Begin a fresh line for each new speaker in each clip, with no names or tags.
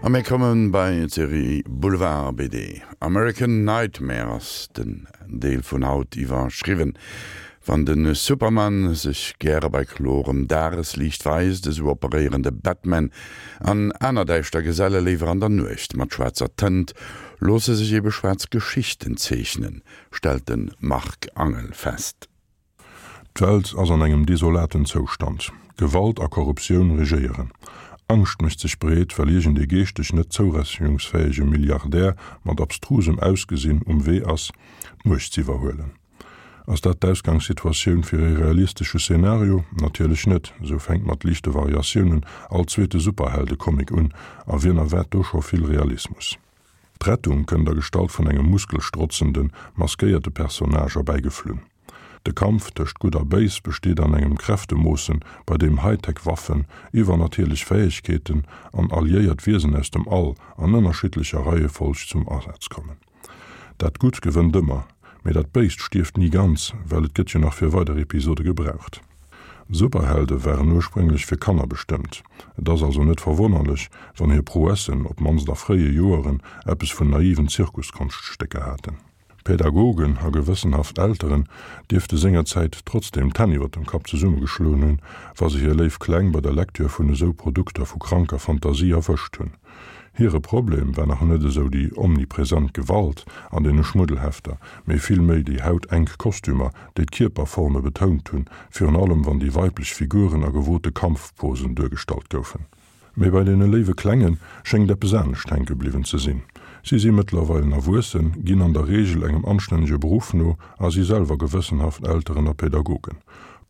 A mir komme bei d'Serie Boulevard BD. American Nightmare ass den Deel vun haut iwwerschriwwen. Wann de Superman sech gäre bei klorem Dagesliicht weist, esou operéieren de Batman an aner däischter Geselle léiwer an der Nuecht. Mat schwaarzer Tënt loosse sech ebe schwaarz Geschichten zeechnen, stellt de Marc Angel fest.
D'Welt ass an engem desolaten Zoustand. Gewalt a Korruptioun regéieren. Angscht mécht sech breet, well iergend ee geeschteg net zourechnungsfäege Milliardär mat abstrusem Ausgesinn um Wee ass, d'Muecht z'iwwerhuelen. Ass dat d'Ausgangssituatioun fir ee realistesche Szenario? Natierlech net. Esou fänkt mat liichte Variatiounen all zweete Superheldecomic un, a wien erwaart do scho vill Realismus? D'Rettung kënnt a Gestalt vun engem muskelstrotzenden, maskéierte Personnage erbäigeflunn. De Kampf tëscht Gutt a Béis besteet an engem Kräftemoossen, bei deem Hightech-Waffen, iwwernatierlech Fäegkeeten an alliéiert Wiesen aus dem All an ënnerschiddlecher Reiefolg zum Asaz kommen. Dat Gutt gewënnt ëmmer, mee dat Béist stierft ni ganz, well et gëtt jo nach fir weider Episode gebraucht. Superhelde waren ursprénglech fir Kanner bestëmmt. Et ass also net verwonnerlech, wann hir Prouessen, op d'mannst a fréie Joeren, eppes vun naiven Zirkuskonschtsstécker haten. Pädagogen a gewëssenhaft Elteren dierfte sengerzäit trotzdeem d'Hänn iwwer dem Kapp zesummegeschloen hunn, wa se hir léif Kleng bei der Lektür vun esou Produkter vu kranker Fantasie erwëscht hunn. Hire Problem war nach net esou déi omnipresent Gewalt an deene Schmuddelhefter, mee vill méi déi hautenk Kostümer, déi d'Kierperforme betount hunn, virun allem wann déi weiblech Figuren a gewote Kampfposen duergestallt goufen. Mee bei deene léiwe Klenge schéngt eppes anescht hänke bliwwen ze sinn. Si si mëttlerweilen erwuessen, ginn an der Reegel engem anstännege Beruff no a si selwer gewëssenhaft Elteren a Pädagogen.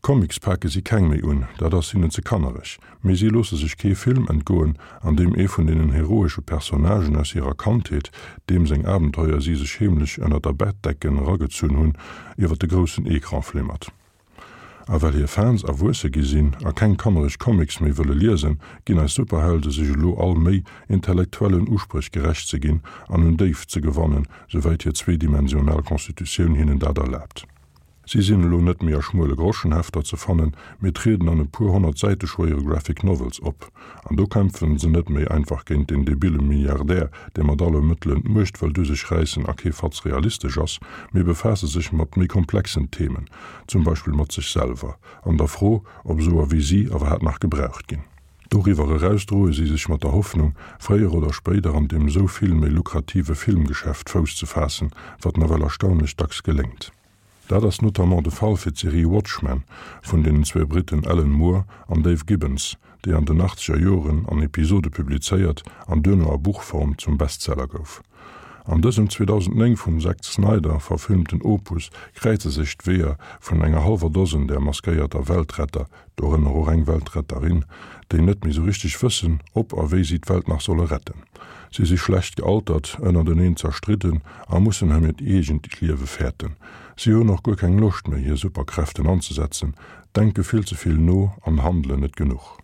Comics pake si keng méi un, dat ass hinnen ze kannereg, mee si loosse sech kee Film entgoen, an deem ee vun deenen heroesche Personnagen aus hirer Kandheet, deem seng Abenteuer si sech heemlech ënner der Bettdecken eragezunn hunn, iwwer de groussen Ecran flimmert. A well hir Fans erwuesse gi sinn a keng kannereg Comics méi wëlle liesen, ginn eis Superhelde sech elo all Méi, intellektuellen Uspréch gerecht ze ginn an un Déift ze gewannen, souwäit hir zweedimensional Constitutioun hinnen dat erlaabt. Si sinn elo net méi a schmuele Groschenhefter ze fannen, mee trieden an e puer 100 Säite schwéiere Graphic Novels op. An do kämpfen se net méi einfach géint den debile Milliardär, dee mat alle Mëttelen d'Muecht wëllt u sech räissen a kee Fatz realistesch ass, mee befaasse sech mat méi komplexen Themen, zum Beispill mat sech selwer an der Fro, ob esouer wéi si iwwerhaapt nach gebraucht ginn. Doriwwer eraus droe si sech mat der Hoffnung, fréier oder spéider an deem esou vill méi lukrative Filmgeschäft Fouss ze faassen, wat nawell erstaunlech dacks geléngt. Dat ass notamment de Fall fir d'Serie Watchmen vun deenen zwee Britten Alan Moore an Dave Gibbons, déi an den achtzeger Joren an Episode publizéiert an duerno a Buchform zum Bestseller gouf. An dësem 2009 vum Zack Snyder verfilmten Opus kräize sech d'Weeër vun enger hallwer Dosen där maskéierter Weltretter, dorënner och eng Weltretterin, déi net méi sou richteg wëssen, ob a wéi si d'Welt nach solle retten. Si si schlecht gealtert, ënnerteneen zerstridden a mussen ëm hiert eegent Liewe fäerten. Si hunn och guer keng Loscht méi, hir Superkräften anzesetzen, denke vill ze vill no an handelen net genuch.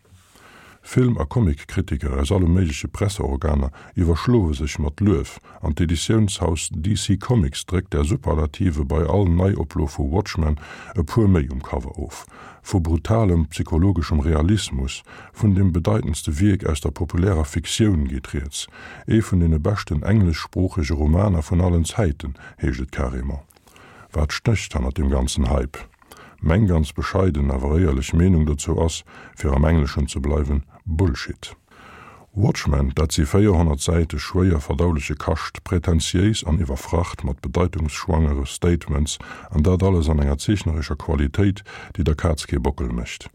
Film a Comic-Kritiker aus alle méigleche Presseorganer iwwerschloe sech mat Luef an d'Editiounshaus DC Comics dréckt där Superlative bei all Neioplo vu Watchmen e puer méi um Cover of. Vu brutalem psychologeschem Realismus, vun dem bedeitendste Wierk aus der populärer Fiktioun geet rieds. Ee vun deene beschten engleschsproochege Romaner vun allen Zäiten, heescht et carrément. Wat stécht hannert deem ganzen Hype? Meng ganz bescheiden, awer éierlech Meenung dozou ass, fir am Engleschen ze bleiwen, Bullshit. Watchmen, dat si 400 Säite schwéier verdauleche Kascht, prätentiéis an iwwerfracht mat bedeitungsschwangere Statements, an dat alles an enger zeechnerescher Qualitéit, déi der Kaz kee Bockel mécht.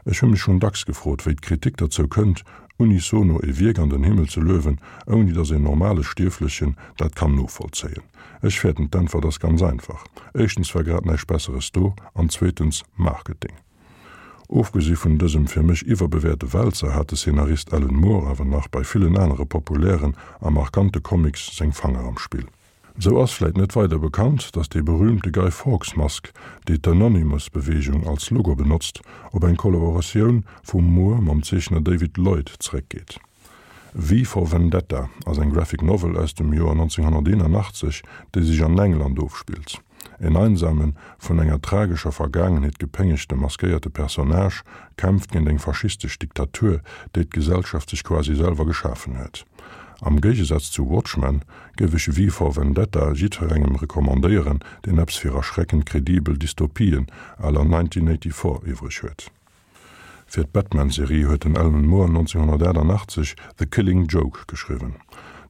Ech hu mech schonn dacks gefrot, wéi d'Kritik derzou kënnt, unisono e Wierk an den Himmel ze luewen, ouni datt een normale Stierflechen dat kann novollzéien. Ech fäerten, d'Äntwert ass ganz einfach, éischtens war grad näischt Besseres do an zweetens Marketing. Ofgesi vun dësem fir mech iwwerbewäerte Wälzer hat de Szenarist Alan Moore awer nach bei villen anere populären a markante Comics seng Fanger am Spill. Sou ass vläit net weider bekannt, datt déi berüümte Guy Fawkes Mask, déi d'Anonymous-Beweegung als Logo benotzt, op eng Kollaboratioun vum Moore mam Zeechner David Lloyd zeréckgeet. V for Vendetta ass eng Graphic Novel aus dem Joer 1981, déi sech an England ofspillt. En einsamen, vun enger tragescher Vergaangenheet gepéngegte maskéierte Personnage kämpft géint eng faschistesch Diktatur, déi d'Gesellschaft sech quasi selwer geschafen huet. Am Géigesaz zu Watchmen géif ech V for Vendetta jiddferengem recommandéieren, deen eppes fir erschreckend kredibel Dystopien à la 1984 iwwreg huet. Fir d'Batman-Serie huet den Alan Moore 1988 The Killing Joke geschriwwen.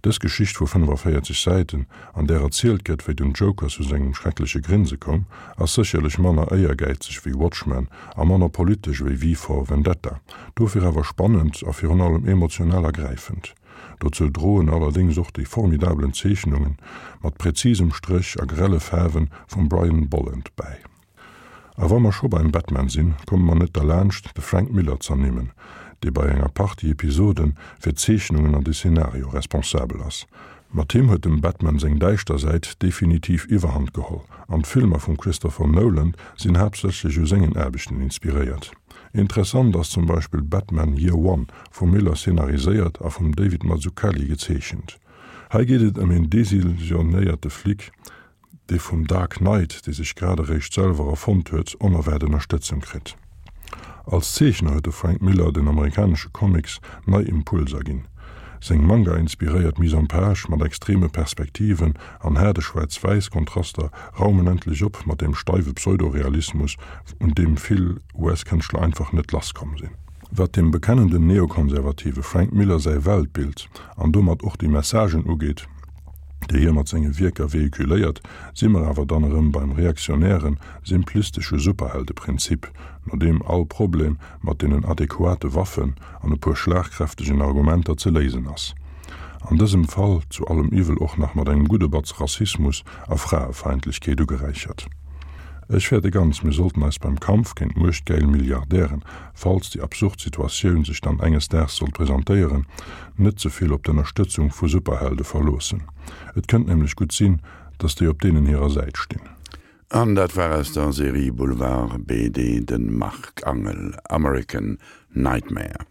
Dës Geschicht vu 45 Säiten, an där erzielt gëtt, wéi den Joker zu sengem schreckleche Grinse koum, ass sécherlech manner éiergäizeg wéi Watchmen a manner politesch wéi V for Vendetta, dofir awer spannend a virun allem emotional ergräifend. Dozou droen allerdéngs och déi formidabelen Zeechnunge mat präzisem Stréch a grelle Faarwe vum Brian Bolland bäi. A wa mer scho beim Batman sinn, komme mer net derlaanscht, de Frank Miller z'ernimmen, dee bei enger Partie Episode fir d'Zeechnungen an de Szenario responsabel ass. Mat him huet dem Batman seng däischter Säit definitiv Iwwerhand geholl, an d'Filmer vum Christopher Nolan sinn haaptsächlech u sengen Aarbechten inspiréiert. Interessant ass zum Beispill Batman Year One, vum Miller szenariséiert a vum David Mazzucchelli gezeechent. Hei geet et ëm een desillusionéierte Flic, dee vum Dark Knight, dee sech grad eréischt selwer erfonnt huet, onerwaart Ënnerstëtzung kritt. Als Zeechner huet de Frank Miller den amerikanesche Comics nei Impulser ginn. Seng Manga-inspiréiert Mise en page mat extreme Perspektiven an haarde Schwaarz-Wäiss-Kontraster raumen endlech op mat deem steiwe Pseudo-Realismus, un deem vill US-Kënschtler einfach net lasskomm sinn. Wat dem bekennenden Neokonservative Frank Miller säi Weltbild an domat och déi Messagen ugeet, déi hie mat senge Wierker vehiculéiert, si mer awer dann erëm beim reaktionären, simplistesche Superheldeprinzip, no deem all Problem mat deenen adequate Waffen an e puer schlagkräftegen Argumenter ze léisen ass. An dësem Fall zu allem Iwwel och nach mat engem gudde Batz Rassismus a Fraefeindlechkeet ugeräichert. Ech fäerte ganz, mir sollten eis beim Kampf géint muechtgäil Milliardären, falls déi absurd Situatioun sech dann enges Daags sollt presentéieren, net ze vill op d'Ënnerstëtzung vu Superhelde verloossen. Et kënnt nämlech gutt sinn, datt déi op deenen hirer Säit stinn.
An dat war aus der Serie Boulevard BD de Marc Angel, American Nightmare.